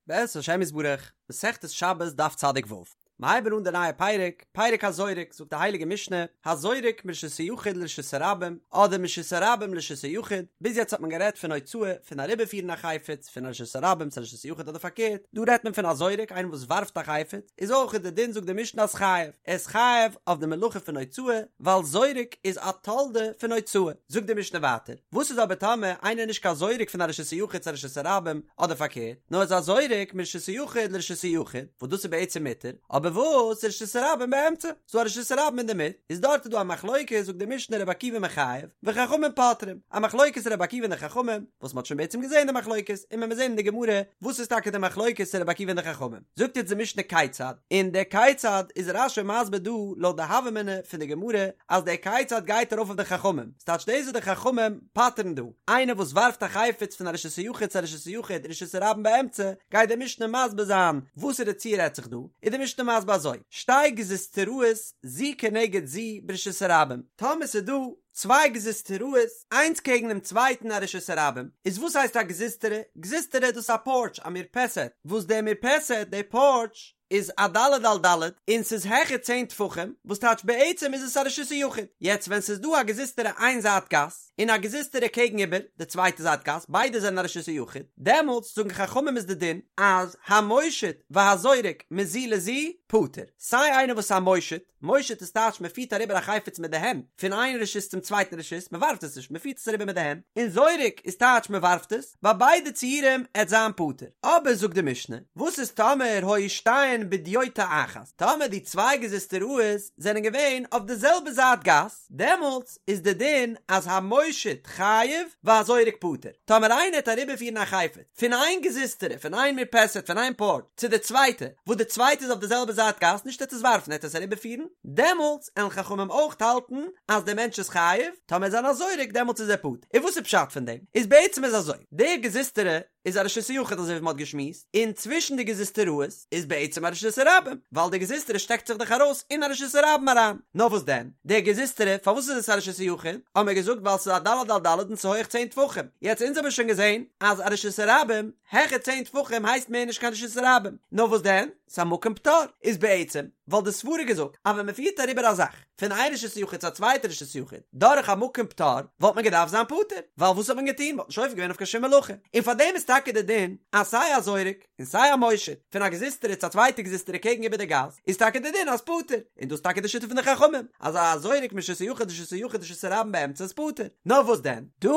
בעזרת השם יתברך, מסכת שבת דף צדיק ו'. מ'הייבן אן די נייע פרק, פרק הזורק, זאגט די הייליגע משנה, הזורק מרשות היחיד לרשות הרבים, אדער מרשות הרבים לרשות היחיד, ביז יעצט האט מען גערעדט פון הוצאה, פון אריבערפירן א חפץ, פון א רשות הרבים צו א רשות היחיד אדער פארקערט, דא רעדט מען פון א זורק, איינער וואס ווארפט א חפץ, איז אויך די דין זאגט די משנה אז חייב, ער איז חייב אויף די מלאכה פון הוצאה, ווייל זורק איז א תולדה פון הוצאה. זאגט די משנה ווייטער, וואס איז אבער טאמער איינער איז נישט קיין זורק פון א רשות היחיד צו א רשות הרבים, אדער פארקערט, נאר איז א זורק מרשות היחיד לרשות היחיד, וואס דאס איז בעצם מותר, אבער וואס רשות הרבים באמצע, ס'דא א רשות הרבים אינדערמיט, איז דארט איז דא א מחלוקת, זאגט די משנה רבי עקיבא מחייב, וחכמים פוטרים, א מחלוקת רבי עקיבא און די חכמים, וואס מ'האט שוין בעצם געזען די מחלוקת, און מען וועט זען אין די גמרא וואס איז טאקע די מחלוקת רבי עקיבא און די חכמים, זאגט יעצט די משנה כיצד, און דער כיצד איז רש"י מסביר דא לויט די הוה אמינא פון די גמרא, אז דער כיצד גייט ארויף אויף די חכמים, ס'טייטש דאס וואס די חכמים פטר'ן דא, איינער וואס ווארפט א חפץ פון א רשות היחיד צו א רשות היחיד רשות הרבים באמצע, גייט די משנה מסביר זיין וואסערע ציור רעדט זיך דא, איז די משנה מסביר אזוי, שתי גזוזטראות זו כנגד זו ברשות הרבים, טאמער ס'איז דא צוויי גזוזטראות איינס קעגן דעם צווייטן א רשות הרבים, איז וואס הייסט א גזוזטרא? גזוזטרא דאס איז א פארטש, א מרפסת, וואס דער מרפסת, די פארטש, איז א ד' על ד' און ס'איז העכער צען טפחים, וואס טייטש בעצם איז עס א רשות היחיד. יעצט ווען ס'איז דא א גזוזטרא איין זייט גאס און א גזוזטרא קעגן איבער די צווייטע זייט גאס ביידע זענען א רשות היחיד, דעמאלטס זאגן חכמים איז די דין אז המושיט והזורק מזו לזו פטור, סיי איינער וואס איז א מושיט, מושיט איז טייטש מען פירט אריבער א חפץ מיט די הענט פון איין רשות צום צווייטן רשות, מען ווארפט עס נישט, מען פירט עס אריבער מיט די הענט, און זורק איז טייטש מען ווארפט עס, ביי ביידע ציורים עט זיין פטור. אבער זאגט די משנה, וואס איז טאמער היו שתיהן בדיוטא אחת, טאמער די צוויי גזוזטראות זענען געווען אויף די זעלבע זייט גאס, דעמאלטס איז די דין אז המושיט חייב והזורק פטור, טאמער איינער עט אריבערפירן א חפץ, פון איין גזוזטרא, פון איין מרפסת, פון איין פארטש, צו די צווייטע, וואס די צווייטע איז אויף די זעלבע זייט גאס, נישט ער עט עס ווארפן, ער עט עס אריבערפירן, דעמאלטס עלן חכמים אויך האלטן אז דער מענטש איז חייב, טאמער איז ער א זורק דעמאלטס איז ער פטור. און וואס איז פשט פון דעם? איז בעצם איז אזוי, די גזוזטרא איז א רשות היחיד אזוי ווי מען האט געשמועסט, און צווישן די גזוזטראות איז בעצם א רשות הרבים, ווייל די גזוזטרא שטעקט זיך דאך ארויס אין א רשות הרבים אריין. נאר וואס דען? די גזוזטרא, פארוואס איז עס א רשות היחיד? האבן מיר געזאגט ווייל ס'איז א ד' על ד' און ס'איז הויעך צען טפחים. יעצט אונז האבן שוין געזען אז א רשות הרבים העכער צען טפחים הייסט מער נישט קיין רשות הרבים. נאר וואס דען? ס'איז א מקום פטור. איז בעצם וואלט די סברה געזאגט אז ווען מ'פירט אריבער א זאך פון איין רשות היחיד צו א צווייטע רשות היחיד דורך א מקום פטור וואלט מען געדארפט זיין פטור. ווייל וואס האט מען געטון? מ'האט נישט עובר געווען אויף קיין שום מלאכה. און פארדעם איז טאקע די דין אז סיי א זורק און סיי א מושיט פון א גזוזטרא צו א צווייטע גזוזטרא קעגן איבער די גאס, איז טאקע די דין אז פטור, און דאס איז טאקע די שיטה פון די חכמים, אז א זורק מרשות היחיד לרשות היחיד רשות הרבים באמצע איז פטור. נאר וואס דען, דא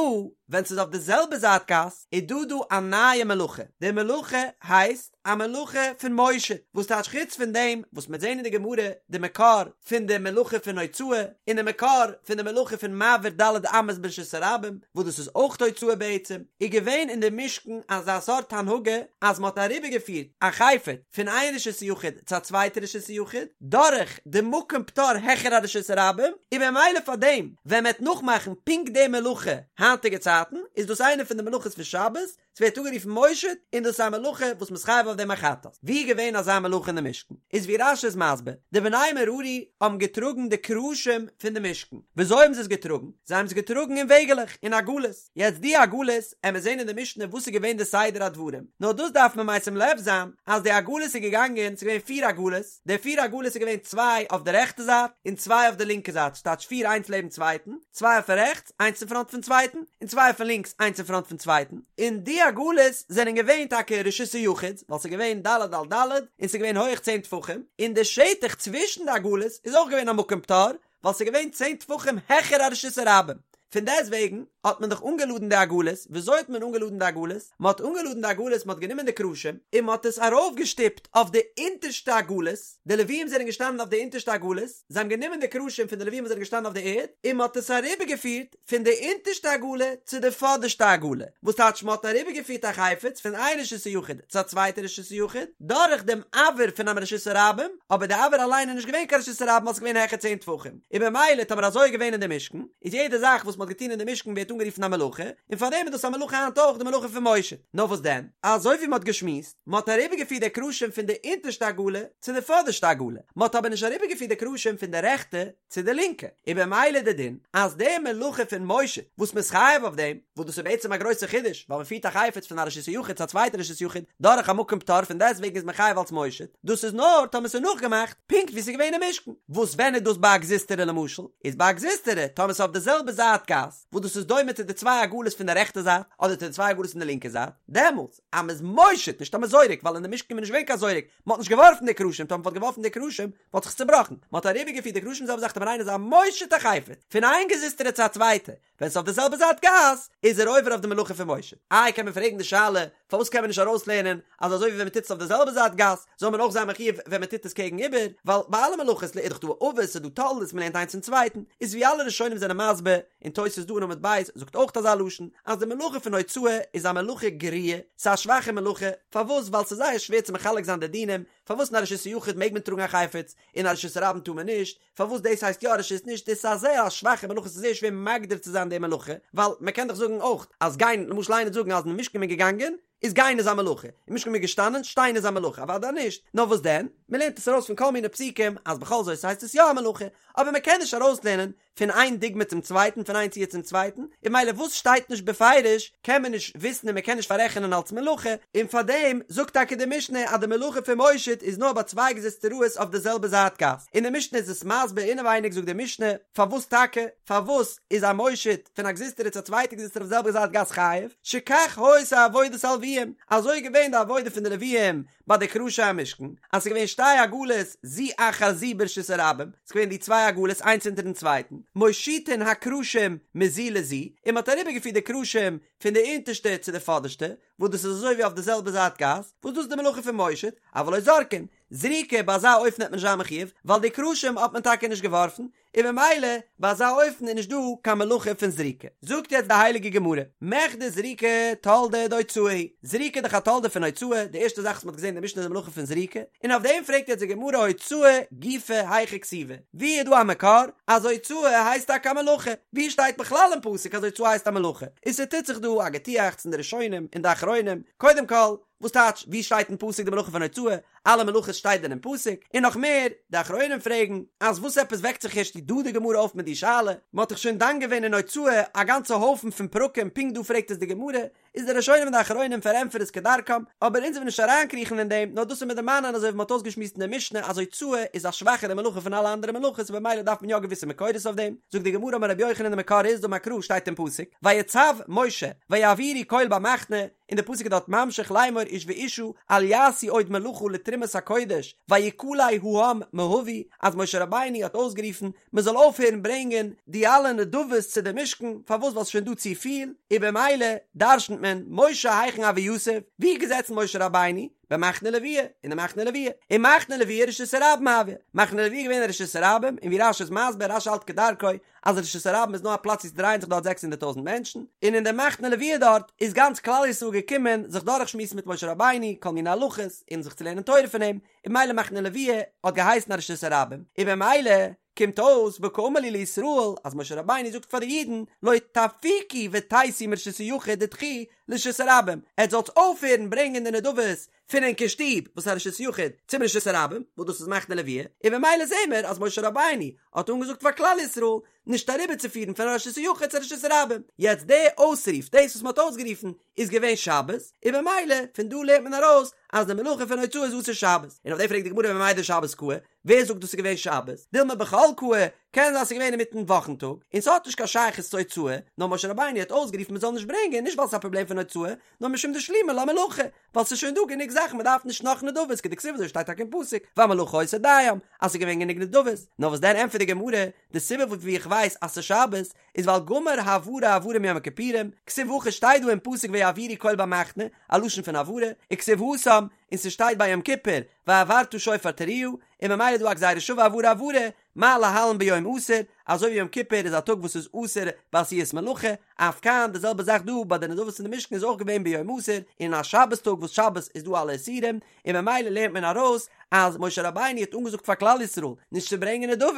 ווען ס'איז אויף די זעלבע זייט גאס, איז דא דא א נייע מלאכה, די מלאכה הייסט א מלאכה פון מושיט, וואס טייטש חוץ פון דעם וואס מ'וועט זען אין די גמרא די מקור פון די מלאכה פון הוצאה, און די מקור פון די מלאכה פון מעביר ד' אמות ברשות הרבים, וואס דאס איז אויך הוצאה בעצם, איז געווען אין די משכן אזא סארט הנהגה אז מען האט אריבערגעפירט א חפץ פון איין רשות היחיד צו א צווייטע רשות היחיד דורך די מקום פטור העכער א רשות הרבים, און במילא פאר דעם ווען מען וועט נאכמאכן פונקט די מלאכה היינטיגע צייטן איז דאס איינע פון די מלאכות פון שבת, ס'ווערט אנגערופן מושיט, און דאס איז א מלאכה וואס מ'איז חייב אויף דעם א חטאת. ווי איז געווען אזא מלאכה אין די משכן? איז ווי רש"י איז מסביר, די בני מררי האבן געטראגן די קרשים פון די משכן. וויאזוי האבן זיי עס געטראגן? זיי האבן עס געטראגן אין וועגעלעך, אין עגלות. יעצט די עגלות, עמיר זען אין די משנה וואס איז געווען די סדר הדברים. נאר דאס דארף מען משים לב זיין, אז די עגלות איז געגאנגען, ס'איז געווען פיר עגלות, די פיר עגלות איז געווען צוויי אויף די רעכטע זייט, און צוויי אויף די לינקע זייט, ס'טייטש פיר איינס לעבן צווייטן, צוויי אויפן רעכטס, איינס אין פראנט פון צווייטן, און צוויי אויפן לינקס, איינס אין פראנט פון צווייטן, און די עגלות זענען געווען טאקע רשות היחיד, ווייל ס'איז געווען ד' על ד', און ס'איז געווען הויעך צען טפחים, און די שטח צווישן די עגלות איז אויך געווען א מקום פטור, ווייל ס'איז געווען צען טפחים העכער א רשות הרבים. פון דעסט וועגן האט מען דאך אנגעלאדן די עגלות, וויאזוי האט מען אנגעלאדן די עגלות? מען האט אנגעלאדן די עגלות, מען האט גענומען די קרשים, און מען האט עס ארויפגעשטופט אויף די אונטערשטע עגלות, די לוויים זענען געשטאנען אויף די אונטערשטע עגלות, זיי האבן גענומען די קרשים פון די לווים וואס זענען געשטאנען אויף די ערד, און מען האט עס אריבערגעפירט פון די אונטערשטע עגלה צו די פאדערשטע עגלה, וואס טייטש מען האט אריבערגעפירט א חפץ פון איין רשות היחיד צו א צווייטע רשות היחיד, דורך דעם אויר פונעם רשות הרבים, אבער די אויר אליין איז נישט געווען קיין רשות הרבים ווייל עס איז געווען העכער צען טפחים, און במילא טאמער אזוי איז געווען אין די משכן, איז יעדע זאך וואס מען האט. מ'האט געטון אין די משכן ווערט אנגערופן א מלאכה, און פארדעם איז דאס א מלאכה היינט אויך די מלאכה פון מושיט. נאר וואס דען? אזוי ווי מ'האט געשמועסט, מ'האט אריבערגעפירט די קרשים פון די אונטערשטע עגלה צו די פאדערשטע עגלה, מ'האט אבער נישט אריבערגעפירט די קרשים פון די רעכטע צו די לינקע, און במילא די דין אז די מלאכה פון מושיט וואס מ'איז חייב אויף דעם, וואס דאס איז בעצם א גרויסע חידוש, ווייל מ'פירט א חפץ פון א רשות היחיד צו א צווייטע רשות יחיד דורך א מקום פטור פון דעסטוועגן איז מען חייב אלס מושיט, דאס איז נאר טאמער ס'איז נאכגעמאכט פונקט ווי ס'איז געווען אין משכן, וואס ווען איז דאס ביי א גזוזטרא למשל? איז ביי א גזוזטרא טאמער ס'איז אויף די זעלבע זייט גאס, וואס דאס איז דומה צו די צוויי עגלות פון די רעכטע זייט, אדער צו די צוויי עגלות פון די לינקע זייט, דעמאלטס אז מ'איז מושיט, נישט אז מ'איז זורק, ווייל אין די משכן איז נישט געווען קיין זורק, מ'האט נישט געווארפן די קרשים, טאמער מ'וואלט געווארפן די קרשים וואלט זיך עס צובראכן, מ'האט אריבערגעפירט די קרשים זעלבע זאך טאמער איינער איז א מושיט א חפץ פון איין גזוזטרא צו א צווייטע, ווען ס'איז אויף די זעלבע זייט גאס, איז ער עובר אויף די מלאכה פון מושיט. איי קען מען פרעגן די שאלה, פארוואס קען מען נישט ארויסלערנען אז אזוי ווי ווען מ'טוט עס אויף די זעלבע זייט גאס, זאל מען אויך זיין מחויב ווען מ'טוט עס קעגן איבער, ווייל ביי אלע מלאכות איז דאך דא אבות ס'איז דא תולדות מ'לערנט איינס פון צווייטן, איז ווי אלע ראשונים זענען מסביר, און תוס' דא אין עמוד ב' זאגט אויך אזא לשון, אז די מלאכה פון הוצאה איז א מלאכה גרועה, ס'איז א שוואכע מלאכה, פארוואס? ווייל ס'איז זייער שווער צו מחלק זיין די דינים, פארוואס אין א רשות היחיד מעג מען טראגן א חפץ, אין א רשות הרבים טאר מען נישט, פארוואס דאס הייסט יא רשות נישט, דאס איז א זייער א שוואכע מלאכה ס'איז זייער שווער מגדיר צו זיין די מלאכה, ווייל מען קען דאך זאגן אויך אז גיין, למשל איינער וועט זאגן אז אין משכן איז מען געגאנגען, איז גיין איז א מלאכה, אין משכן איז מען געשטאנען, שטיין איז א מלאכה, אוודאי נישט, נאר וואס דען, מען לערנט עס ארויס פון כל מיני פסוקים אז בכל זאת הייסט עס יא א מלאכה, אבער מען קען נישט ארויסלערנען פון איין דוגמא צום צווייטן, פון איין ציור צום צווייטן, און ממילא וואס שטייט נישט בפירוש קען מען נישט וויסן און מען קען נישט פאררעכענען אלס מלאכה, און פארדעם זאגט טאקע די משנה אז די מלאכה פון מושיט איז נאר ביי צוויי גזוזטראות אויף די זעלבע זייט גאס, און די משנה איז עס מסביר אינעווייניג זאגט די משנה, פארוואס טאקע, פארוואס איז א מושיט פון א גזוזטרא צו א צווייטע גזוזטרא אויף די זעלבע זייט גאס חייב, שכך היתה עבודת הלוויים, אזוי איז געווען די עבודה פון די לוויים ביי די קרשי המשכן, אז ס'איז געווען שתי עגלות זו אחר זו ברשות הרבים, ס'איז געווען די צוויי עגלות איינס אונטערן צווייטן, מושיטין הקרשים מזו לזו, און מ'האט אריבערגעפירט די קרשים פון די אונטערשטע צו די פאדערשטע, וואס דאס איז אזוי ווי אויף די זעלבע זייט גאס, וואס דאס איז די מלאכה פון מושיט, אבל לא זורקין, זריקה ביי אזא אופן וועט מען נישט זיין מחויב, ווייל די קרשים האט מען טאקע נישט געווארפן, און ממילא ביי אזא אופן איז נישט דא קיין מלאכה פון זריקה. זאגט יעצט די הייליגע גמרא, מכדי זריקה תולדה דהוצאה היא, זריקה איז דאך א תולדה פון הוצאה, די ערשטע זאך וואס מ'האט געזען אין די משנה איז די מלאכה פון זריקה, און אויף דעם פרעגט יעצט די גמרא הוצאה גופא היכא כתיבא, ווי איז דא א מקור אז הוצאה הייסט טאקע א מלאכה? ווי שטייט בכלל אין פסוק אז הוצאה הייסט א מלאכה? און ס'טוט זיך דא א געטועכץ אין די ראשונים און די אחרונים, קודם כל, וואס טייטש ווי שטייט אין פסוק די מלאכה פון הוצאה? אלע מלאכות שטייט דען אין פסוק? און נאך מער, די אחרונים פרעגן, אז וואס עפעס וועקט זיך ערשט דא די גמרא אויף מיט די שאלה? מען האט דאך שוין דן געווען אין הוצאה א גאנצע הויפן פון פרקים פונקט דא פרעגט עס די גמרא, איז די ראשונים און די אחרונים פארענטפערן עס כדרכם, אבער אונז וועלן נישט אריינקריכן אין דעם, נאר דאס איז מיר דערמאנען אזוי ווי מען האט אויסגעשמועסט אין די משנה אז הוצאה איז א שוואכערע מלאכה פון אלע אנדערע מלאכות און במילא דארף מען יא געוויסע מקורות אויף דעם, זאגט די גמרא אמר רבי יוחנן די מקור איז דאמר קרא שטייט אין פסוק ויצו משה ויעבירו קול במחנה, און די פסוק איז דארט ממשיך לאמור איש ואשה אל יעשו עוד מלאכה לתרומת הקודש ויכלא העם מהביא אז משה רבינו האט אויסגערופן מען זאל אויפהערן ברענגען די אלע נדבות צו די משכן פארוואס ווייל ס'איז שוין דא צופיל און במילא דרשנ'ט מען משה היכן הוה יתיב ווי איז געזעצן משה רבינו במחנה לוויה אין די מחנה לוויה און מחנה לוויה רשות הרבים הוה מחנה לוויה איז געווען א רשות הרבים און ווי רש"י איז מסביר רש"י האלט כדרכו אז רשות הרבים איז נאר א פלאץ ווי ס'דרייען זיך דארט זעקס הונדערט טויזנט מענטשן, און אין די מחנה לוויה דארט איז גאנץ כלל ישראל געקומען זיך דורכשמועסן מיט משה רבינו כל מיני הלכות און זיך צו לערנען תורה פון אים, און במילא מחנה לוויה האט געהייסן א רשות הרבים, און במילא קומט אויס וקאמר להו לישראל אז משה רבינו זאגט פאר די אידן לא תפיקו ותיתו מרשות היחיד דידכו לרשות הרבים, עטס זאלטס אויפהערן ברענגען די נדבות פון ענקער שטוב וואס איז א רשות יחיד צום רשות הרבים וואס דאס איז מחנה לוויה, און במילא זעהן מיר אז משה רבינו האט אנגעזאגט פאר כלל ישראל נישט אריבערצופירן פון א רשות היחיד צו א רשות הרבים, יעצט די אויסרוף דאס וואס מען האט אויסגערופן איז געווען שבת, און במילא פון דא לערנט מען ארויס אז די מלאכה פון הוצאה איז אסור שבת, און אויף דעם פרעגט די גמרא וממאי דשבת קאי, ווער זאגט דאס איז געווען שבת? דילמא בחול קאי, קען זיין ס'איז געווען אינמיטן וואכן טאג, און ס'האט נישט קיין שייכות צו הוצאה, נאר משה רבינו האט אויסגערופן מ'זאל נישט ברענגען נישט ווייל ס'איז א פראבלעם פון הוצאה, נאר משום דשלימא לה מלאכה, ווייל ס'איז שוין דא גענוג זאכן מ'דארף נישט נאך נדבות, כדכתיב אזוי שטייט טאקע אין פסוק, והמלאכה היתה דים, אז ס'איז געווען גענוג נדבות, נאר וואס דען ענטפערט די גמרא, די סיבה פון ווי איך ווייס אז ס'איז שבת, איז ווייל גמר העברה העברה מיום הכיפורים, כתיב הכא שטייט דא אין פסוק ויעבירו קול במחנה, א לשון פון העברה, וכתיב התם, און ס'שטייט ביי יום כיפור, והעברת שופר תרועה, און ממילא איז דא א גזירה שווה העברה העברה, מה להלן ביום אסור, אזוי ווי יום כיפור איז א טאג וואס איז אסור בעשיית מלאכה, אף כאן די זעלבע זאך דא ביי די נדבות אין די משכן איז אויך געווען ביום אסור, אין א שבת טאג וואס שבת איז דא אלע איסורים, און ממילא לערנט מען ארויס אז משה רבינו האט אנגעזאגט פאר כלל ישראל נישט צו ברענגען נדבות,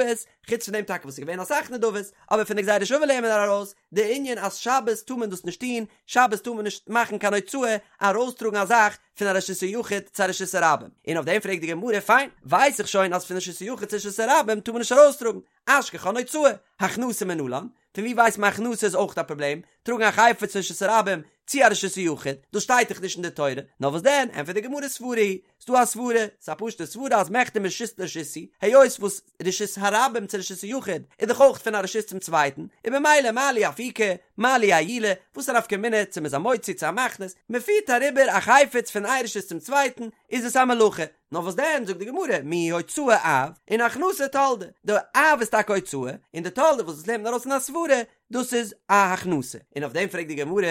חוץ פון דעם טאקע וואס איז געווען אסאך נדבות, אבער פון די גזירה שוה לערנט מען ארויס די ענין אז שבת טאר מען דאס נישט טון, שבת טאר מען נישט מאכן קיין הוצאה ארויסטראגן א זאך פון א רשות היחיד צו א רשות הרבים, און אויף דעם פרעגט די גמרא, פיין, ווייס איך שוין אז פון רשות היחיד צו רשות הרבים טאר מען נישט ארויסטראגן, אשכחן הוצאה, הכנסה מנלן, פון ווי ווייסט מען הכנסה איז אויך א פראבלעם, טראגן א חפץ פון רשות הרבים צו א רשות היחיד, דאס שטייט דאך נישט אין די תורה, נאר וואס דען, ענטפערט די גמרא סברא היא, ס'דא א סברה, ס'איז א פשוטע סברה אז מכדי מרשות לרשות הוא, היות וואס רשות הרבים צו רשות היחיד איז דאך אויך פון א רשות צום צווייטן, און במילא מה לי אפוקי, מה לי עיולי, וואס א נפקא מינה צו מ'איז א מוציא צו א מכניס, מ'פירט אריבער א חפץ פון איין רשות צום צווייטן, איז עס א מלאכה, נאר וואס דען זאגט די גמרא מיהו הוצאה אב און הכנסה תולדה, די אב איז טאקע הוצאה, און די תולדה וואס דאס לערנט מען ארויס אין א סברה, דאס איז א הכנסה, און אויף דעם פרעגט די גמרא,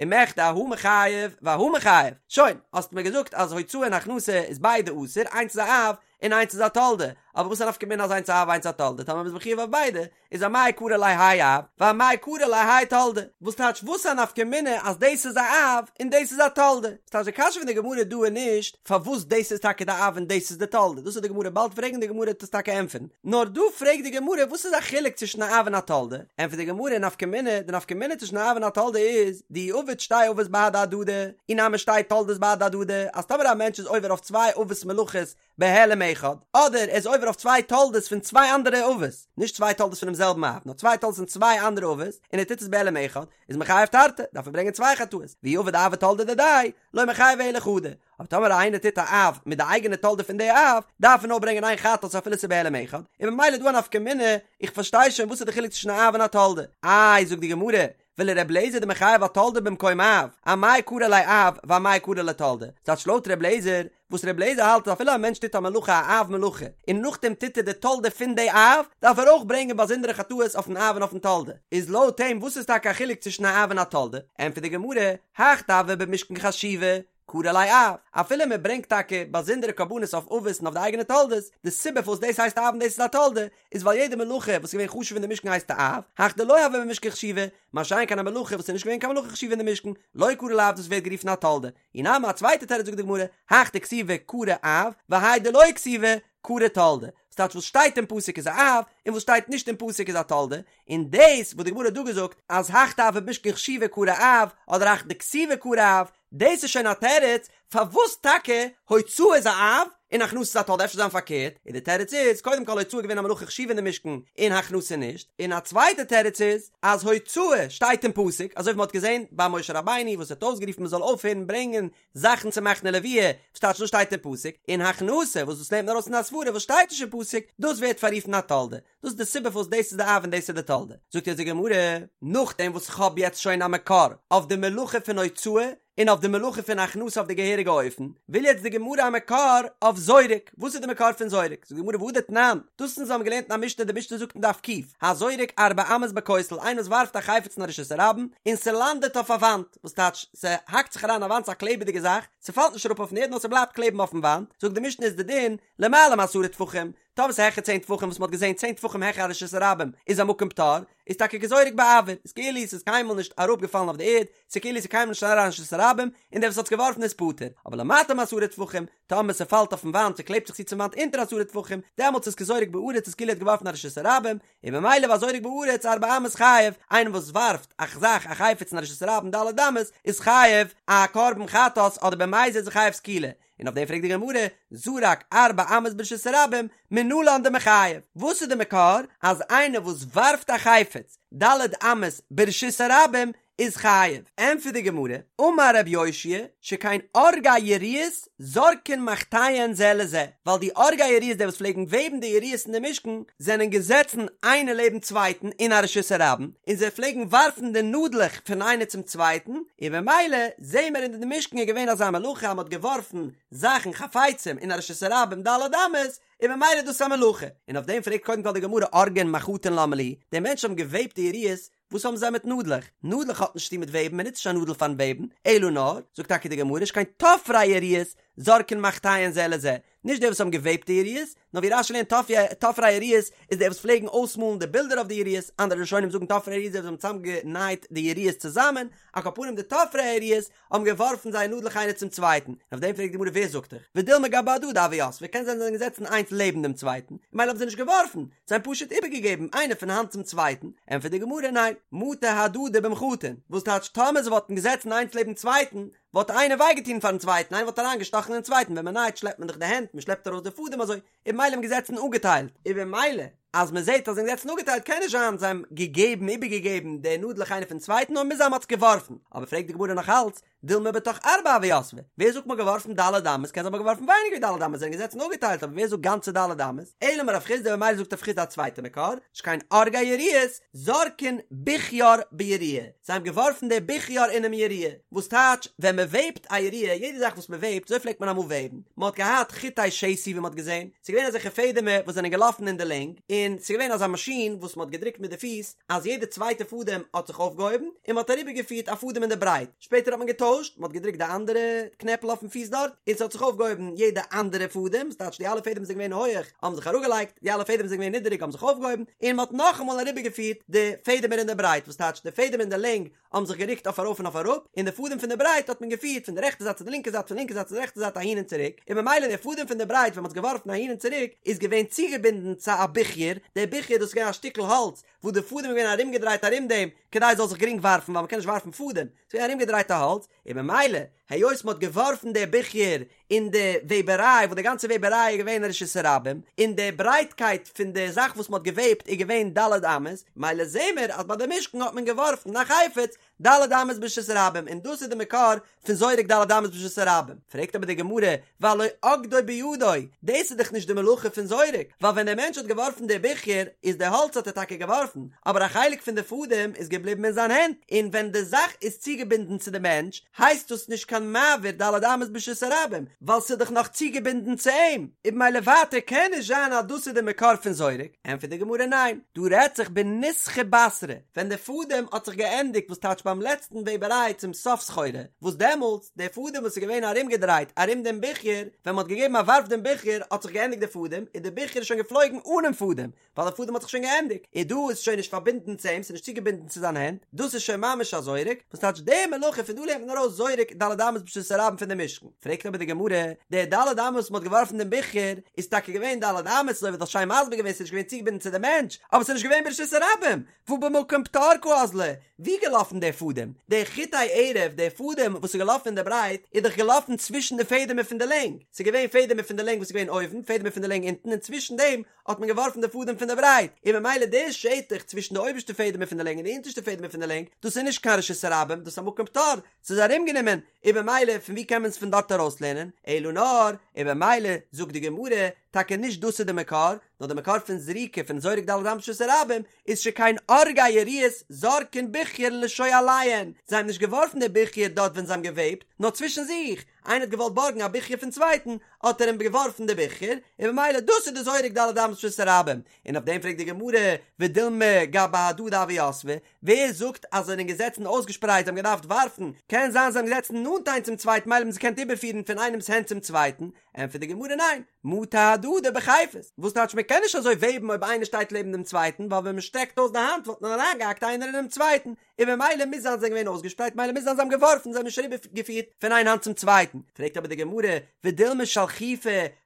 ומכדי אהא מיחייב ואהא מיחייב, שוין, האסט מיר געזאגט אז הוצאה און הכנסה איז ביידע אסור, איינס איז א אב און איינס איז א תולדה, אבער וואס א נפקא מינה אז איינס א אב איינס א תולדה, טאמער מ'איז מחויב אויף ביידע, איז אמאי קרי ליה האי אב, ואמאי קרי ליה האי תולדה, וואס טייטש וואס א נפקא מינה אז דאס איז א אב און דאס איז א תולדה? ס'טייטש די קשיא פון די גמרא דא איז נישט פארוואס דאס איז טאקע די אב און דאס איז די תולדה, דאס וועט די גמרא באלד פרעגן די גמרא וועט עס טאקע ענטפערן, נאר דא פרעגט די גמרא וואס איז א חילוק צווישן א אב און א תולדה, ענטפערט די גמרא נפקא מינה, די נפקא מינה צווישן א אב און א תולדה איז, דאי עביד שתי אבות בהדי הדדי, אי נמי שתי תולדות בהדי הדדי, אז טאמער א מענטש איז עובר אויף צוויי אבות מלאכות בהעלם אחד, אדער ער איז עובר אויף צוויי תולדות פון צוויי אנדערע אבות, נישט צוויי תולדות פונעם זעלבן אב, נאר צוויי תולדות פון צוויי אנדערע אבות, און ער טוט עס בהעלם אחד, איז מיחייב תרתי, דארף ער ברענגען צוויי חטאות, ואי עביד אב ותולדה דידיה, לא מיחייב אלא חדא. אבער טאמער איינער טוט א אב מיט די אייגענע תולדה פון די אב, דארף ער נאר ברענגען איין חטאת אפילו ס'איז בהעלם אחד, און ממילא איז דא א נפקא מינה, איך פארשטיי שוין וואס איז די חילוק צווישן א אב און א תולדה. איי, זאגט די גמרא, ולר' אליעזר דמחייב אתולדה במקום אב, אמאי קרי ליה אב ואמאי קרי ליה תולדה, ס'טייטש לויט ר' אליעזר, וואס ר' אליעזר האלט אז אפילו א מענטש טוט א מלאכה א אב מלאכה, און נאכדעם טוט ער די תולדה פון די אב, דארף ער אויך ברענגען באזונדערע חטאות אויפן אב און אויפן תולדה. איז לויט אים וואס איז טאקע א חילוק צווישן א אב און א תולדה? ענטפערט די גמרא, הך דהוה במשכן חשיבה, קרי ליה אב, אפילו מען ברענגט טאקע באזונדערע קרבנות אויף אבות און אויף די אייגענע תולדות, די סיבה פארוואס דאס הייסט א אב און דאס איז א תולדה, איז ווייל יעדע מלאכה וואס איז געווען חשוב אין די משכן הייסט א אב, הך דלא הוה במשכן חשיבה, מה שאין כן א מלאכה וואס איז נישט געווען קיין מלאכה חשובה אין די משכן, לא קרי ליה אב דאס ווערט גערופן א תולדה. אי נמי א צווייטע תירוץ זאגט די גמרא, הך דכתיבי קרי אב, והאי דלא כתיבי קרי תולדה, וואס טייטש וואס שטייט אין פסוק איז א אב, און וואס שטייט נישט אין פסוק איז א תולדה, און דאס וואס די גמרא האט דא געזאגט אז הך דהוה במשכן חשיבה קרי אב, אדער הך דכתיבי קרי אב, דאס איז שוין א תירוץ פארוואס טאקע הוצאה איז א אב און הכנסה איז א תולדה, אפשר זיין פארקערט, און די תירוץ איז, קודם כל הוצאה איז געווען א מלאכה חשובה אין די משכן און הכנסה נישט, און א צווייטע תירוץ איז אז הוצאה שטייט אין פסוק, אזוי ווי מען האט געזען ביי משה רבינו וואס האט אויסגערופן מען זאל אויפהערן ברענגען זאכן צו מחנה לוויה, וואס טייטש דאס שטייט אין פסוק, און הכנסה וואס דאס לערנט מען ארויס אין א סברא וואס שטייט נישט אין פסוק, דאס ווערט פאררופן א תולדה. דאס איז די סיבה פארוואס דאס איז די אב און דאס איז די תולדה. זאגט יעצט די גמרא, נאכדעם וואס איך האב יעצט שוין א מקור אויף די מלאכה פון הוצאה און אויף די מלאכה פון הכנסה אויף די געהעריגע אופן, וויל יעצט די גמרא א מקור אויף זורק. וואס איז די מקור פון זורק? זאגט די גמרא והא דתנן, דאס אונז האבן געלערנט אין א משנה, די משנה זאגט אין דף ק', הזורק ארבע אמות בכותל, איינער וואס ווארפט א חפץ אין א רשות הרבים, און ס'לאנדעט אויף א וואנט, וואס טייטש, ס'האקט זיך אריין אין א וואנט, ס'איז א קלעבעדיגע זאך, ס'פאלט נישט אראפ אויפן ערד נאר ס'בלייבט קלעבן אויפן וואנט, זאגט די משנה איז די דין, למעלה מעשרה טפחים, טאמער ס'איז העכער צען טפחים וואס מ'האט געזען צען טפחים העכער א רשות הרבים איז א מקום פטור, איז טאקע כזורק באויר, איז כאילו ס'איז קיינמאל נישט אראפגעפאלן אויף די ערד, ס'איז כאילו ס'איז קיינמאל נישט אריין אין רשות הרבים, און דער וואס האט עס געווארפן איז פטור, אבער למטה מעשרה טפחים, טאמער ס'פאלט אויפן וואנט ס'קלעבט זיך צו צום וואנט אונטער עשרה טפחים, דעמאלטס איז כזורק בארץ איז כאילו ער האט געווארפן א רשות הרבים, און ממילא והזורק בארץ ארבע אמות חייב, איינער וואס ווארפט א זאך א חפץ אין א רשות הרבים ד' אמות איז חייב א קרבן חטאת אדער במזיד איז ער חייב סקילה, און אויף דעם פרעגט די גמרא, זרק ארבע אמות ברשות הרבים, מנלן דמיחייב, וואס איז די מקור אז איינער וואס ווארפט א חפץ ד' אמות ברשות הרבים איז חייב? ענטפערט די גמרא, אמר רבי יאשיה, שכן אורגי יריעות זורקין מחטיהן זה לזה, ווייל די אורגי יריעות די וואס פלעגן וועבן די יריעות אין די משכן, זענען געזעצן איינער לעבן צווייטן אין א רשות הרבים, און זיי פלעגן ווארפן די נאדלעך פון איינער צום צווייטן, און במילא זעהן מיר אין די משכן איז געווען אזא מלאכה אז מען האט געווארפן זאכן חפצים אין א רשות הרבים ד' אמות, און במילא איז דאס א מלאכה. און אויף דעם פרעגט קודם כל די גמרא אורגין מחטין למה לי, די מענטשן האבן געוועבט די יריעות, וואס האבן זיי מיט נאדלעך? נאדלעך האט נישט צוטון מיט וועבן, מען נוצט נישט א נאדל פארן וועבן, אלא נאר, זאגט טאקע די גמרא, שכן תופרי יריעות. זורקין מחטיהן זה לזה, נישט די וואס האבן געוועבט די יריעות, נאר ווי רש"י לערנט תופרי היריעות איז די וואס פלעגן אויסמאלן די בילדער אויף די יריעות, אנדערע ראשונים זאגן תופרי היריעות די וואס האבן צוזאמגענייט די יריעות צוזאמען, על כל פנים די תופרי היריעות האבן געווארפן זייער נאדלעך איינער צום צווייטן, און אויף דעם פרעגט די גמרא ווער זאגט דיך, ודילמא גבי הדדי הוו יתבי, קען זיין זיי זענען געזעצן איינס לעבן דעם צווייטן, ממילא האבן זיי נישט געווארפן, זיי האבן פשוט איבערגעגעבן איינער פון האנט צום צווייטן, ענטפערט די גמרא ניין, מטא הדדי במחטין, וואס טייטש טאמער זיי וואלטן געזעצן איינס לעבן צווייטן, וואלט איינער וויי געטון פארן צווייטן, איינער וואלט אריין געשטאכן אין צווייטן, ווען מען נייט שלעפט מען דאך די הענט, מען שלעפט ארויס די פאדעם אזוי, און ממילא האבן געזעצן אפגעטיילט, און במילא אז מען זעט אז זיי זענען געזעצן אפגעטיילט קען נישט זיין זיי האבן געגעבן איבערגעגעבן די נאדלעך איינער פון צווייטן נאר מוז זיין מען האט עס געווארפן, אבער פרעגט די גמרא נאך אלץ, דילמא בתוך ארבע הוו יתבי, ווער זאגט מען האט געווארפן ד' אמות, קען זיין מען האט געווארפן ווייניגער ווי ד' אמות, זיי זענען געזעצן אפגעטיילט אבער ווער זאגט גאנצע ד' אמות, אלא אמר רב חסדא במילא זאגט רב חסדא א צווייטע מקור, שכן אורגי יריעות זורקין בוכיאר ביריעה, זיי האבן געווארפן די בוכיאר אינעם יריעה, וואס טייטש ווען מען וועבט א יריעה, יעדע זאך וואס מען וועבט, אזוי פלעגט מען אמאל וועבן, מען האט געהאט חוטי שתי ווי מען האט געזען, ס'איז געווען אזעלכע פעדעמער וואס זענען געלאפן אין די לענג, און ס'איז געווען אזא מאשין וואס מען האט געדרוקט מיט די פיס אז יעדע צווייטע פאדעם האט זיך אויפגעהויבן, און מען האט אריבערגעפירט א פאדעם אין די ברייט, שפעטער האט מען געטוישט, מען האט געדרוקט די אנדערע קנעפל אויפן פיס דארט, און ס'האט זיך אויפגעהויבן יעדע אנדערע פאדעם, ס'טייטש די אלע פעדעם וואס זענען געווען הויעך האבן זיך אראפגעלייגט, די אלע פעדעם וואס זענען געווען נידעריג האבן זיך אויפגעהויבן, און מען האט נאכאמאל אריבערגעפירט די פעדעמער אין די ברייט, וואס טייטש די פעדעם אין די לענג האבן זיך גערוקט אויף ארויף און אויף אראפ, און די פאדעם פון די ברייט האט מען געפירט פון די רעכטע זייט צו די לינקע זייט פון לינקע זייט צו די רעכטע זייט אהין און צוריק, און ממילא די פאדעם פון די ברייט ווען מען האט עס געווארפן אהין און צוריק איז געווען צוגעבינדן צו א בוכיאר, די בוכיאר דאס איז געווען א שטיקל האלץ וואס די פאדעם איז געווען ארומגעדרייט ארום דעם כדי עס זאל זיך גרינג ווארפן ווייל מען קען נישט ווארפן פאדעם, ס'איז געווען ארומגעדרייטע האלץ, און ממילא היות מען האט געווארפן די בוכיאר אין די וועבעריי וואס די גאנצע וועבעריי איז געווען רשות הרבים, און די ברייטקייט פון די זאך וואס מען האט געוועבט איז געווען ד' אמות, מילא זעהן מיר אז ביי די משכן האט מען געווארפן א חפץ ד' אמות ברשות הרבים, און דאס איז די מקור פון זורק ד' אמות ברשות הרבים. פרעגט אבער די גמרא, והלא אגדו בידו, דאס איז דאך נישט די מלאכה פון זורק, ווייל ווען דער מענטש האט געווארפן די בוכיאר, איז די האלץ האט ער טאקע געווארפן, אבער א חלק פון די פאדעם איז געבליבן אין זיין הענט, און ווען די זאך איז צוגעבינדן צו די מענטש, הייסט דאס נישט קיין מעביר ד' אמות ברשות הרבים, ווייל ס'איז דאך נאך צוגעבינדן צו אים, און במילא ווייטער קען נישט זיין אז דאס איז די מקור פון זורק, ענטפערט די גמרא ניין, דא רעדט זיך בניסכא בתרא, ווען די פאדעם האט זיך געענדיגט וואס טייטש ביים לעצטן וועבעריי צום סוף סחורה, וואס דעמאלטס, די פאדעם וואס איז געווען ארומגעדרייט ארום דעם בוכיאר, ווען מ'האט געגעבן א ווארף דעם בוכיאר האט זיך געענדיגט די פאדעם, און די בוכיאר איז שוין געפלויגן אנעם פאדעם, ווייל די פאדעם האט זיך שוין געענדיגט, און דא איז שוין נישט פארבינדן צו אים, ס'איז נישט צוגעבינדן צו זיין הענט, דאס איז שוין ממש א זורק, וואס טייטש די מלאכה, פון דא לערנט מען ארויס זורק ד' אמות ברשות הרבים פון די משכן. פרעגט אבער די גמרא, די ד' אמות וואס מ'האט געווארפן דעם בוכיאר, איז טאקע געווען ד' אמות, אזוי ווי דו האסט שיין מסביר געווען, ס'איז נישט געווען צוגעבינדן צו די מענטש, אבער ס'איז נישט געווען ברשות הרבים, והא במקום פטור קאזלי, ווי געלאפן דער פאדעם? דער חוטי ערב, דער פאדעם וואס איז געלאפן אין די ברייט, איז דאך געלאפן צווישן די פעדעמער פון די לענג, ס'איז געווען פעדעמער פון די לענג וואס איז געווען אויבן, פעדעמער פון די לענג אונטן, און צווישן דעם האט מען געווארפן די פאדעם פון די ברייט, און ממילא די שטח צווישן די אויבערשטע פעדעמער פון די לענג און די אונטערשטע פעדעמער פון די לענג, דאס איז נישט קיין רשות הרבים, דאס איז א מקום פטור, ס'איז ארומגענומען, און במילא פון ווי קען מען עס פון דארט ארויסלערנען, אלא נאר, און במילא זאגט די גמרא, טאקע נישט דאס איז די מקור, נאר די מקור פון זריקה פון זורק ד' אמות ברשות הרבים איז שכן אורגי יריעות זורקין בוכיירן לשואליהן, זיי האבן נישט געווארפן די בוכיאר דארט ווען זיי האבן געוועבט, נאר צווישן זיך, איינער האט געוואלט בארגן א בוכיאר פון צווייטן, האט ער אים געווארפן די בוכיאר, און במילא דאס איז די זורק ד' אמות ברשות הרבים, און אויף דעם פרעגט די גמרא, ודילמא גבי הדדי הוו יתבי, ווער זאגט אז זיי זענען געזעצן אויסגעשפרייט זיי האבן געדארפט ווארפן, קען זיין זיי זענען געזעצן נאנט איינס צום צווייטן מילא האבן זיי געקענט איבערפירן פון איינעמס הענט צום צווייטן, ענטפערט די גמרא ניין, מטא הדדי בחיפות, וואס טייטש מען קען נישט אזוי וועבן אויב איינער שטייט לעבן דעם צווייטן, ווייל ווען מען שטרעקט אויס די האנט וואלט מען אריינגעהאקט איינער אינעם צווייטן, און במילא מוז זיין זיי זענען געווען אויסגעשפרייט מילא מוז זיין זיי האבן געווארפן זיי האבן נישט אריבערגעפירט פון איין האנט צום צווייטן, פרעגט אבער די גמרא, ודילמא שלחופי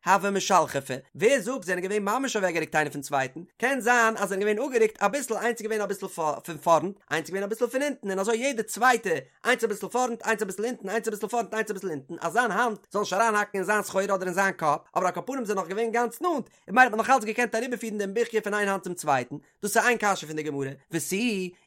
הוו משלחפי, ווער זאגט זיי זענען געווען ממש אוועקגערוקט איינער פון צווייטן, קען זיין אז זיי זענען געווען אפגערוקט אביסל איינס איז געווען אביסל פון פארנט איינס איז געווען אביסל פון הינטן און אזוי יעדע צווייטע איינס אביסל פארנט איינס אביסל הינטן איינס אביסל פארנט איינס אביסל הינטן אז זיין האנט זאל נישט אריינהאקן אין זיין סחורה אדער אין זיין קאפ, אבער על כל פנים זענען נאך געווען גאנץ נאנט, און ממילא האט מען נאך אלץ געקענט אריבערפירן דעם בוכיאר פון איין האנט צום צווייטן, דאס איז איין קשיא פון די גמרא, ותו,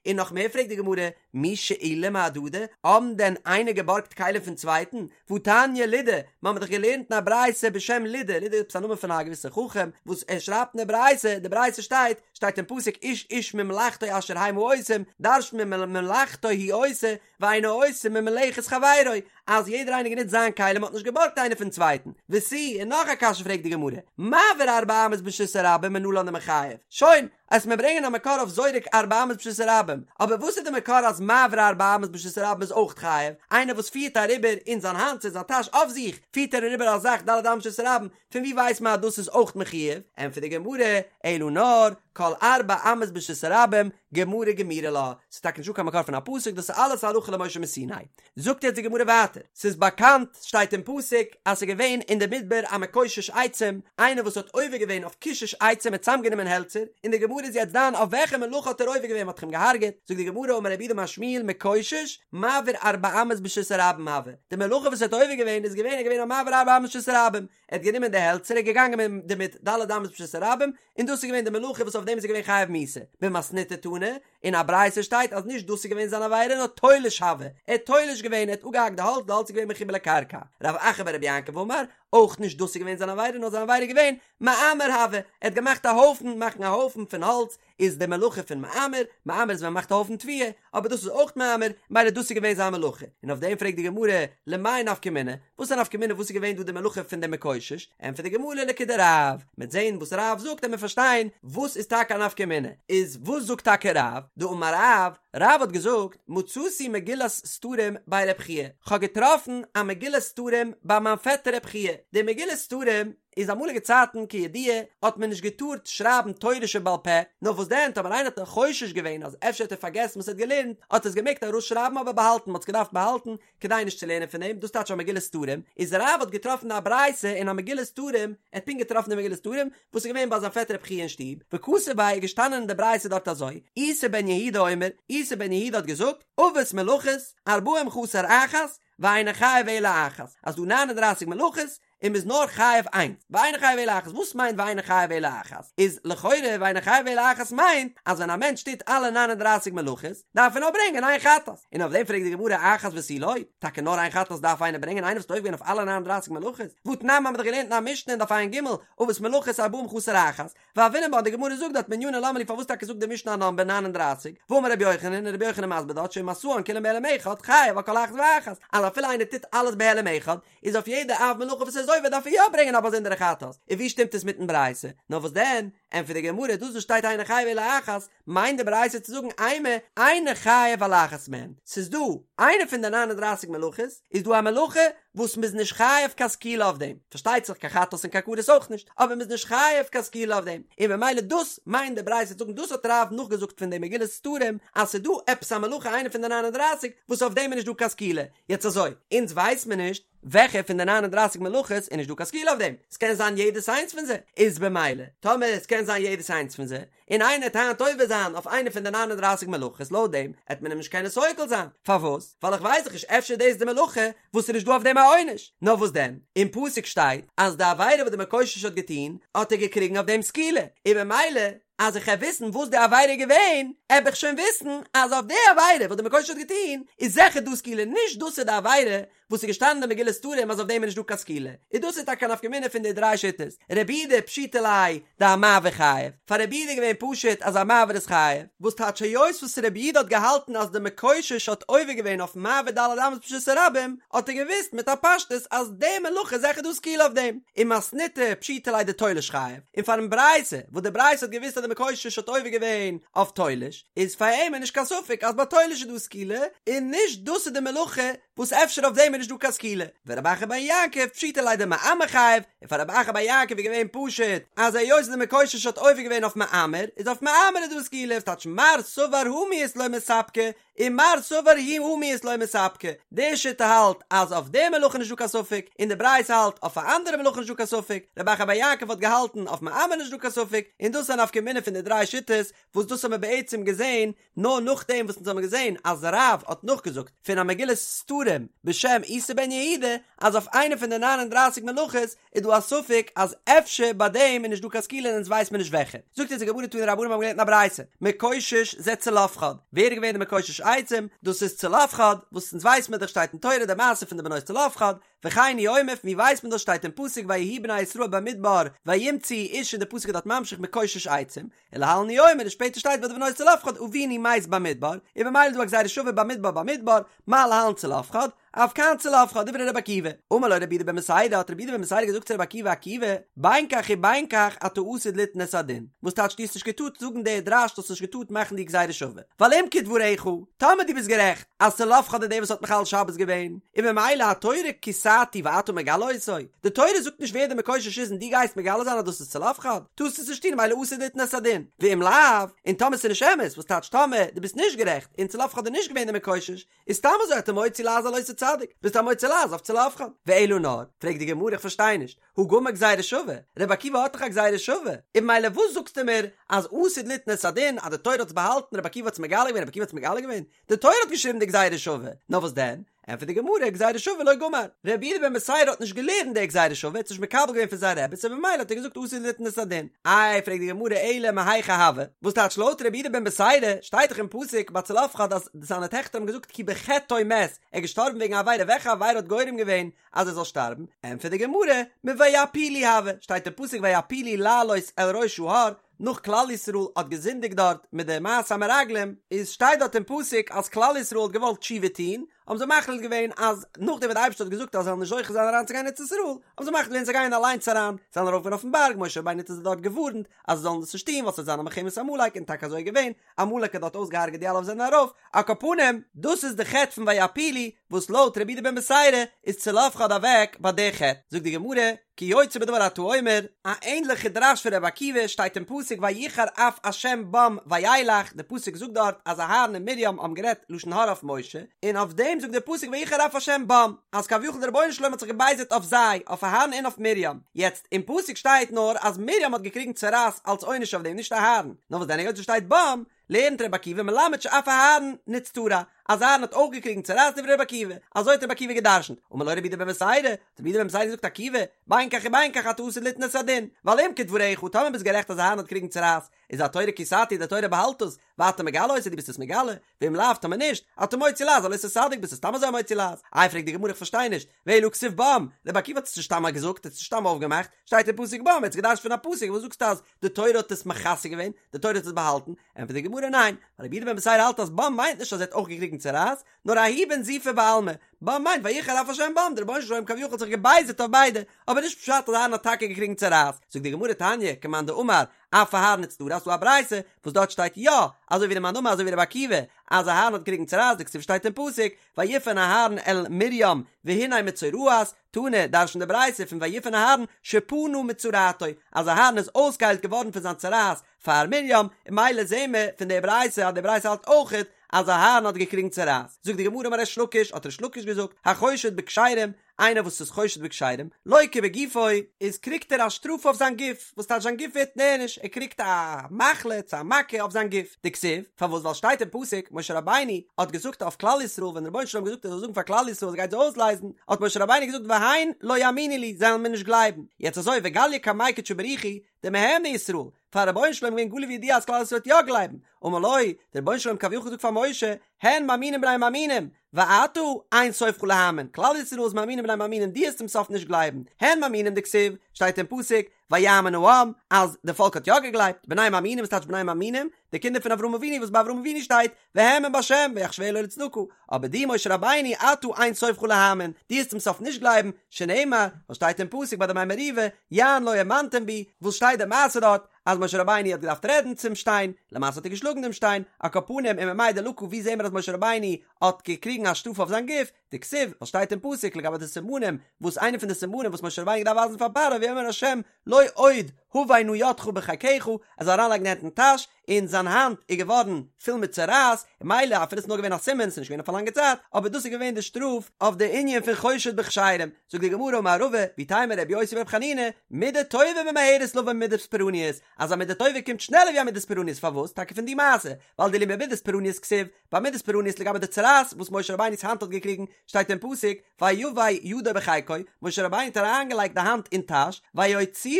און נאך מער פרעגט די גמרא, מי שאילי מהדדי, האבן דען איינער געבארגט כלים פון צווייטן? והתניא לודא, מיר האבן דאך געלערנט אין א ברייתא בשם לודא, לודא איז עפעס א נאמען פון א געוויסע חכם, וואס ער שרייבט אין די ברייתא, די ברייתא שטייט, שטייט אין פסוק איש איש ממלאכתו אשר המה עושים, דרש'נט מען ממלאכתו הוא עושה, ואינו עושה ממלאכת חברו, אז יעדער איינער גענוצט זיין כלי, מ'האט נישט געבארגט איינער פון צווייטן, ותו, און נאך א קשיא פרעגט די גמרא, מעביר ארבע אמות ברשות הרבים מנלן דמיחייב, שוין, אז מיר ברענגען א מקור אויף זורק ארבע אמות ברשות הרבים, אבער וואס איז די מקור אז מעביר ארבע אמות ברשות הרבים איז אויך חייב? איינער וואס פירט אריבער אין זיין האנט צו אין זיין טאש אויף זיך פירט ער אריבער א זאך ד' אמות ברשות הרבים, פון ווי ווייסט מען אז דאס איז אויך מחויב? ענטפערט די גמרא, אלא נאר, כל ארבע אמות ברשות הרבים, גמרא גמירי לה, ס'איז טאקע נישטא קיין מקור פון א פסוק, דאס איז אלעס הלכה למשה מסיני. זאגט יעצט די גמרא ווייטער, ס'איז באקאנט, שטייט אין פסוק, אז ס'איז געווען אין די מדבר א מקושש עצים, איינער וואס האט עובר געווען אויף קישוש עצים, ער האט צוזאמגענומען העלצער, און די גמרא איז יעצט דן אויף וועלכע מלאכה האט ער עובר געווען, מ'האט דאך אים געהארגעט, זאגט די גמרא אמר רב יהודה אמר שמואל מקושש, מעביר ארבע אמות ברשות הרבים הוה, די מלאכה וואס ער האט עובר געווען איז געווען ער איז געווען א מעביר ארבע אמות ברשות הרבים, ער האט גענומען די העלצער ער איז געגאנגען דערמיט ד' אמות ברשות הרבים, און דאס איז געווען די מלאכה וואס אויף דעם איז ער געווען חייב מיתה, במתניתא תנא, אין א ברייתא שטייט אז נישט דאס איז געווען זיין עבירה נאר תולש הוה, ער האט תולש געווען ער האט אפגעהאקט די האלץ די האלץ איז געווען מחובר לקרקע, רב אחא ברבי יעקב אמר, אויך נישט דאס איז געווען זיין עבירה נאר זיין עבירה איז געווען מעמר הוה, ער האט געמאכט א הויפן, מאכן א הויפן פון האלץ איז די מלאכה פון מעמר, מעמר איז ווען מ'מאכט א הויפן תבואה, אבער דאס איז אויך מעמר, מילא דאס איז געווען זיין מלאכה, און אויף דעם פרעגט די גמרא, למאי נפקא מינה, וואס איז א נפקא מינה וואס איז געווען דא די מלאכה פון דעם מקושש, ענטפערט די גמרא לכדרב, מ'עט זען וואס רב זאגט עמיר פארשטיין וואס איז טאקע א נפקא מינה, איז וואס זאגט טאקע רב, דאמר רב, רב האט געזאגט, מצאתי מגילת סתרים בי רב חייא, כ'האב געטראפן א מגילת סתרים ביי מיין פעטער רב חייא, די מגילת סתרים איז אמאליגע צייטן כידוע האט מען נישט געטארט שרייבן תורה שבעל פה, נאר וואס דען טאמער איינער האט חושש געווען אז אפשר האט ער פארגעסן וואס ער האט געלערנט האט ער עס געמעגט ארויסשרייבן אבער באהאלטן, מ'האט עס געדארפט באהאלטן כדי נישט צו לערנען פון דעם, דאס טייטש א מגילת סתרים, איז רב האט געטראפן א ברייתא אין א מגילת סתרים, ער האט פונקט געטראפן די מגילת סתרים וואס איז געווען ביי זיין פעטער רב חייא אין שטוב, וכתיב ביה איז געשטאנען אין די ברייתא דארט אזוי, איסי בן יהודה אומר, איסי בן יהודה האט געזאגט, אבות מלאכות, ארבעים חסר אחת, ואינו חייב אלא אחת, אז דא ניין און דרייסיג מלאכות, און מ'איז נאר חייב איינס, ואינו חייב אלא אחת, וואס מיינט ואינו חייב אלא אחת? איז לכאורה ואינו חייב אלא אחת מיינט אז ווען א מענטש טוט אלע ניין און דרייסיג מלאכות דארף ער נאר ברענגען איין חטאת, און אויף דעם פרעגט די גמרא אחת ותו לא, טאקע נאר איין חטאת דארף איינער ברענגען איינער וואס האט עובר געווען אויף אלע ניין און דרייסיג מלאכות, והתנן האמיר דאך געלערנט אין א משנה אין דף ע"ג, אבות מלאכות ארבעים חסר אחת, והוינן בה און די גמרא זאגט דארט מנינא למה לי פארוואס טאקע זאגט די משנה א נאמבער 39, והאמר רבי יוחנן און רבי יוחנן מסביר דארט שאם עשאן כולן בהעלם אחד חייב על כל אחת ואחת, אז אפילו איינער טוט אלעס בהעלם אחד, איז אויף יעדע אב מלאכה וואס ער איז עובר דארף ער יא ברענגען א באזונדערע חטאת, און ווי שטימט עס מיטן ברייתא? נאר וואס דען, ענטפערט די גמרא, דאס וואס שטייט אינו חייב אלא אחת, מיינט די ברייתא צו זאגן אימא אינו חייב על אחת מהן, ס'איז דא איינע פון די ניין און דרייסיג מלאכות, איז דא א מלאכה וואס מ'איז נישט חייב קיין סקילה אויף דעם, פארשטייט זיך קיין חטאת און קיין כרת אויך נישט, אבער מ'איז נישט חייב קיין סקילה אויף דעם, און במילא דאס מיינט די ברייתא צו זאגן דאס האט רב נאכגעזאגט פון די מגילת סתרים אז ס'איז דא עפעס א מלאכה איינע פון די ניין און דרייסיג וואס אויף דעם איז נישט דא קיין סקילה, יעצט אזוי, אונז ווייס מיר נישט וועלכע פון די ניין און דרייסיג מלאכות איז נישט דא קיין סקילה אויף דעם, ס'קען זיין יעדעס איינס פון זיי, איז במילא טאמער עס קען זיין יעדעס איינס פון זיי, און איינער עט היינט עובר זיין אויף איינע פון די ניין און דרייסיג מלאכות לויט דעם עט מען אים נישט קענען סוקל זיין, פארוואס? ווייל איך ווייס דאך נישט אפשר איז דאס די מלאכה וואס איז נישט דא אויף דעם א עונש, נאר וואס דען? אין פסוק שטייט אז די עבירה וואס די מקושש האט געטון האט ער געקריגן אויף דעם סקילה, און במילא אז איך העב וויסן וואס די עבירה איז געווען, העב איך שוין וויסן אז אויף די עבירה וואס די מקושש האט געטון איז זיכער דא סקילה, נישט דאס איז די עבירה וואס איז געשטאנען אין מגילת סתרים אז אויף דעם איז נישט דא קיין סקילה, און דאס איז טאקע א נפקא מינה פון די דריי שיטות, רבי יהודה פשיטא ליה דהמעביר חייב, פאר רבי יהודה איז געווען פשוט אז א מעביר איז חייב, וואס טייטש היות וואס רבי יהודה האט געהאלטן אז די מקושש האט עובר געווען אויף מעביר ד' אמות ברשות הרבים, האט ער געוואוסט מיט א פשטות אז די מלאכה איז זיכער דא סקילה אויף דעם, ומתניתא פשיטא ליה דתולש חייב, און פארן ברייתא וואס די ברייתא האט געוואוסט אז די מקושש האט עובר געווען אויף תולש, איז פאר אים איז נישט קיין ספק אז ביי תולש איז דא סקילה, און נישט דאס איז די מלאכה וואס אפשר אויף דעם איז נישט דא קיין סקילה, ורב אחא בר יעקב פשיטא ליה דמעמר חייב, און פאר רב אחא בר יעקב איז געווען פשוט אז היות די מקושש האט עובר געווען אויף מעמר, איז אויף מעמר איז דא סקילה, וואס טייטש מר סבר הא מיהת לא מספקא, און מר סבר הא מיהת לא מספקא, די שיטה האלט אז אויף די מלאכה איז נישט דא קיין ספק, און די ברייתא האלט אויף א אנדערע מלאכה נישט דא קיין ספק, רב אחא בר יעקב האט געהאלטן אויף מעמר נישט דא קיין ספק, און דאס איז א נפקא מינה פון די דריי שיטות, וואס דאס האבן מיר בעצם געזען נאר נאכדעם וואס אונז האבן געזען אז רב האט נאכגעזאגט פון א מגילת סתרים בשם איסי בן יהודה אז אויף איינע פון די ניין און דרייסיג מלאכות איז דא א ספק אז אפשר ביי דעם איז נישט דא קיין סקילה און אונז ווייסט מען נישט וועלכע. זאגט אונז די גמרא תנו רבנן מיר האבן געלערנט אין א ברייתא מקושש זה צלפחד, ווער איז געווען די מקושש עצים? דאס איז צלפחד, וואס אונז ווייסט מען דאך שטייט אין תורה די מעשה פון די בנות צלפחד, וכן הוא אומר פון ווי ווייסט מען דאס שטייט אין פסוק ויהיו בני ישראל במדבר וימצאו איש און די פסוק איז דארט ממשיך מקושש עצים, ולהלן הוא אומר און שפעטער שטייט ביי די בנות צלפחד אבינו מת במדבר, און במילא איז דא א גזירה שווה במדבר במדבר, מה להלן צלפחד? אף כאן צלפחד דברי רבי עקיבא. אמר לו רבי יהודה בן בתירא, האט רבי יהודה בן בתירא געזאגט צו רבי עקיבא עקיבא, בין כך ובין כך אתה עתיד ליתן את הדין, וואס טייטש דו האסט נישט געטארט זאגן די דרש, דו האסט נישט געטארט מאכן די גזירה שווה, ווייל אם כדבריך, טאמער דו ביסט גערעכט אז צלפחד איז דער וואס האט מחלל שבת געווען, און ממילא התורה כסתו ואתה מגלה אותו, די תורה זאגט נישט ווער דער מקושש איז און דו גייסט מגלה זיין אז דאס איז צלפחד, טארסט עס נישט טון ממילא עתיד ליתן את הדין, ואם לאו, און טאמער ס'איז נישט אמת, וואס טייטש טאמער דו ביסט נישט גערעכט און צלפחד איז נישט געווען דער מקושש, איז סתם אזוי אתה מוציא לעז על אותו צדיק, ביסט א מוציא לעז אויף צלפחד. ואלא נאר, פרעגט די גמרא איך פארשטיי נישט, הא גמר גזירה שווה, רבי עקיבא האט דאך א גזירה שווה, און ממילא וואס זאגסטו מיר אז עתיד ליתן את הדין אז די תורה האט עס באהאלטן רבי עקיבא האט עס מגלה געווען רבי עקיבא האט עס מגלה געווען, די תורה האט געשריבן די גזירה שווה, נאר וואס דען? ענטפערט די גמרא, גזירה שווה לא גמר, רבי יהודה בן בתירא האט נישט געלערנט די גזירה שווה, ער האט עס נישט מקבל געווען פון זיין רבי, סאו במילא האט ער געזאגט עתיד ליתן את הדין. איי, פרעגט די גמרא, אלא מהיכא הוה, וואס טייטש לויט רבי יהודה בן בתירא, שטייט דאך אין פסוק ביי צלפחד אז זיינע טעכטער האבן געזאגט כי בחטאו מת, ער איז געשטארבן וועגן א עבירה, וועלכע עבירה האט גורם געווען אז ער זאל שטארבן? ענטפערט די גמרא, מויעפילו הוה, שטייט אין פסוק ויעפילו לעלות אל ראש ההר, נאך כלל ישראל האט געזינדיגט דארט מיט די מעשה המרגלים, איז שטייט דארט אין פסוק אז כלל ישראל האט געוואלט תשובה טוהן, האבן זיי מחליט געווען אז נאכדעם וואס די אייבערשטער האט געזאגט אז זיי זאלן נישט זוכה זיין אריינצוגיין אין ארץ ישראל, האבן זיי מחליט געווען זיי גייען אליינס אריין, זיי זענען ארויף אויפן בארג, משה רבינו האט זיי דארט געווארנט אז זיי זאלן דאס נישט טוהן ווייל ס'וועט זיין א מלחמת עמלק, און טאקע אזוי איז געווען, עמלק האט דארט אויסגעהארגעט די אלע וואס זענען ארויף, על כל פנים, דאס איז די חטא פון ויעפילו, וואס לויט רבי יהודה בן בתירא איז צלפחד אוועק ביי די חטא, זאגט די גמרא, כיוצא בדבר אתה אומר, א ענדליכע דרש פון רבי עקיבא שטייט אין פסוק ויחר אף השם בם וילך, די פסוק זאגט דארט אז אהרן און מרים האבן גערעדט לשון הרע אויף משה, און אויף דעם זאגט דער פסוק ויחר אף השם בם, אז כביכול דער רבונו של עולם האט זיך געבייזערט אויף זיי, אויף אהרן און אויף מרים, יעצט אין פסוק שטייט נאר אז מרים האט געקריגן צרעת אלץ עונש אויף דעם נישט אהרן, נאר וואס דען היות עס שטייט בם, לערנט רבי עקיבא מלמד שאף אהרן נצטרע, אז אהרן האט אויך געקריגן צרעת דברי רבי עקיבא, אזוי האט רבי עקיבא גע'דרש'נט, אמר לו רבי יהודה בן בתירא, האט רבי יהודה בן בתירא געזאגט עקיבא, בין כך ובין כך אתה עתיד ליתן את הדין, ווייל אם כדבריך, טאמער ביסט גערעכט אז אהרן האט געקריגן צרעת, איז התורה כסתו די תורה באהאלט עס, ואתה מגלה אותו דו ביסט עס מגלה, ואם לאו טאמער נישט, אתה מוציא לעז על אותו צדיק ביסט עס סתם אזוי מוציא לעז, איי פרעגט די גמרא איך פארשטיי נישט, ואלא הכתיב בם, רבי עקיבא האט עס נישט סתם געזאגט, ער האט עס נישט סתם אויפגעמאכט, שטייט אין פסוק בם, ער האט עס געדרש'ט פון א פסוק, וואס זאגסטו אז די תורה האט עס מכסה געווען, די תורה האט עס באהאלטן, ענטפערט די גמרא ניין, ווייל רבי יהודה בן בתירא האלט אז בם מיינט נישט אז ער האט אויך געקריגן צרעת, נאר ההוא בנזיפה בעלמא, בם מיינט ויחר אף השם בם, דער רבונו של עולם כביכול האט זיך געבייזערט אויף ביידע, אבער נישט פשט אז אהרן האט טאקע געקריגן צרעת, זאגט די גמרא תניא, כמאן דאמר, אף אהרן נצטרע, ס'דא א ברייתא וואס דארט שטייט יא, אזוי ווי די מאן דאמר אזוי ווי רבי עקיבא, אז אהרן האט געקריגן צרעת, דכתיב שטייט אין פסוק, ויפן אהרן אל מרים והנה מצורעת, תנא, דרש'נט די ברייתא פון ויפן אהרן שפנה מצרעתו, אז אהרן איז אויסגעהיילט געווארן פון זיין צרעת פאר מרים, און ממילא זעהן מיר פון די ברייתא אז די ברייתא האלט אויכעט אז אהרן האט געקריגן צרעת. זאגט די גמרא אמר ריש לקיש, האט ריש לקיש געזאגט, החושד בכשרים, איינער וואס איז חושד בכשרים, לוקה בגופו, איז קריגט ער א שטראף אויף זיין גוף, וואס טייטש זיין גוף ווערט נענש, ער קריגט א מחלה צו א מכה אויף זיין גוף, דכתיב, פארוואס ווייל שטייט אין פסוק, משה רבינו האט געזאגט אויף כלל ישראל ווען דער רבונו של עולם האט געזאגט ער זאל זאגן פאר כלל ישראל אז ער גייט זיי אויסלייזן, האט משה רבינו געזאגט והן לא יאמינו לי, זיי וועלן מיר נישט גלייבן, יעצט אזוי וגליא קמיה קודשא בריך הוא, דמהימני ישראל, פאר רבונו של עולם געווען גלוי וידוע אז כלל ישראל וועט יא גלייבן, אמר לו, דער רבונו של עולם כביכול געזאגט פאר משה, הן מאמינים בני מאמינים, ואתה אין סופך להאמין, כלל ישראל איז מאמינים בני מאמינים דו וועסט צום סוף נישט גלייבן, הן מאמינים דכתיב, שטייט אין פסוק, ויאמן העם, אז די פאלק האט יא געגלייבט, בני מאמינים וואס טייטש בני מאמינים? די קינדער פון אברהם אבינו וואס ביי אברהם אבינו שטייט, והאמין בה' ויחשבה לו לצדקה, אבער דו משה רבינו אתה אין סופך להאמין, דו וועסט צום סוף נישט גלייבן, שנאמר, וואס שטייט אין פסוק ביי די מי מריבה, יען לא האמנתם בי, וואס שטייט די מעשה דארט, אז משה רבינו האט געדארפט רעדן צום שטיין, למעשה האט ער געשלאגן דעם שטיין, על כל פנים וממאי דלקה ווי זעהן מיר אז משה רבינו האט געקריגן א שטראף אויף זיין גוף, דכתיב, וואס שטייט אין פסוק לגבי די סימנים, וואס איינע פון די סימנים וואס משה רבינו האט געדארפט ווייזן פאר פרעה ויאמר ה' לא עוד הבא נא ידך בחיקך, ער זאל אריינלייגן די הענט אין טאש, און זיין האנט איז געווארן פול מיט צרעת, און ממילא אפילו עס איז נאר געווען א סימן, עס איז נישט געווען אויף א לאנגע צייט, אבער דאס איז געווען די שטראף אויף די ענין פון חושד בכשרים. זאגט די גמרא אמר רבא, ואיתימא רבי יוסי ברבי חנינא, מידה טובה ממהרת לבוא ממידת פורענות, אז א מידה טובה קומט שנעלער ווי א מידת פורענות, פארוואס? טאקע פון די מעשה, ווייל דאילו במידת פורענות כתיב, ביי מידת פורענות לגבי די צרעת וואס משה רבינו'ס האנט האט געקריגן, שטייט אין פסוק, ויבא ידו בחיקו, משה רבינו האט אריינגעלייגט די האנט אין טאש, ויוציאה.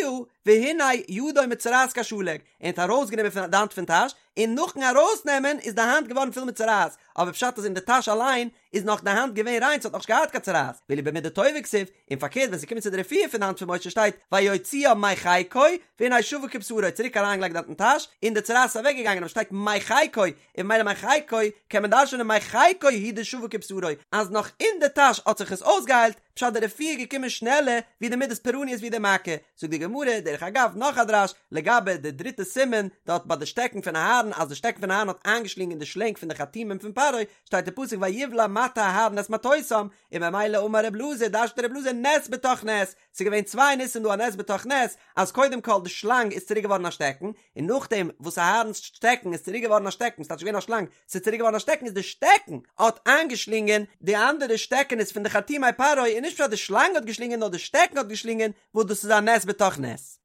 והנה ידו מצורעת כשלג, ער האט ארויסגענומען פון די האנט פון טאש, און נאכן ארויסנעמען איז די האנט געווארן פול מיט צרעת, אבער פשט איז אין די טאש אליין איז נאך די האנט געווען ריין ס'האט נאכנישט געהאט קיין צרעת, ואילו במידה טובה כתיב, און פארקערט ווען ס'קומט צו די רפואה פון די האנט פון משה שטייט ויוציאה מחיקו והנה שבה כבשרו צוריק אריינגעלייגט די האנט אין טאש און די צרעת איז אוועקגעגאנגען אבער שטייט מחיקו און ממילא מחיקו קען מען דרש'נען מחיקו הוא דשבה כבשרו אז נאך אין די טאש האט זיך עס אויסגעהיילט, פשט די רפואה איז געקומען שנעלער ווי די מידת פורעניות ווי די מכה, זאגט די גמרא, דרך אגב נאך א דרש לגבי די דריטע סימן דארט ביי די שטעקן פון אהרן אז די שטעקן פון אהרן האט איינגעשלינגען די שלענג פון די חרטומים פון פרעה, שטייט אין פסוק ויבלע מטה אהרן את מטותם, און ממילא אמר רב אלעזר דרש'נט רב אלעזר נס בתוך נס, ס'איז געווען צוויי ניסים דא א נס בתוך נס, אז קודם כל די שלאנג איז צוריק געווארן א שטעקן, און נאכדעם וואס אהרן'ס שטעקן איז צוריק געווארן א שטעקן, ס'טייטש געווען א שלאנג, ס'איז צוריק געווארן א שטעקן איז די שטעקן האט איינגעשלינגען די אנדערע שטעקענעס פון די חרטומי פרעה און נישט פשט די שלאנג האט געשלינגען נאר די שטעקן האט געשלינגען וואס דאס איז א נס בתוך נס.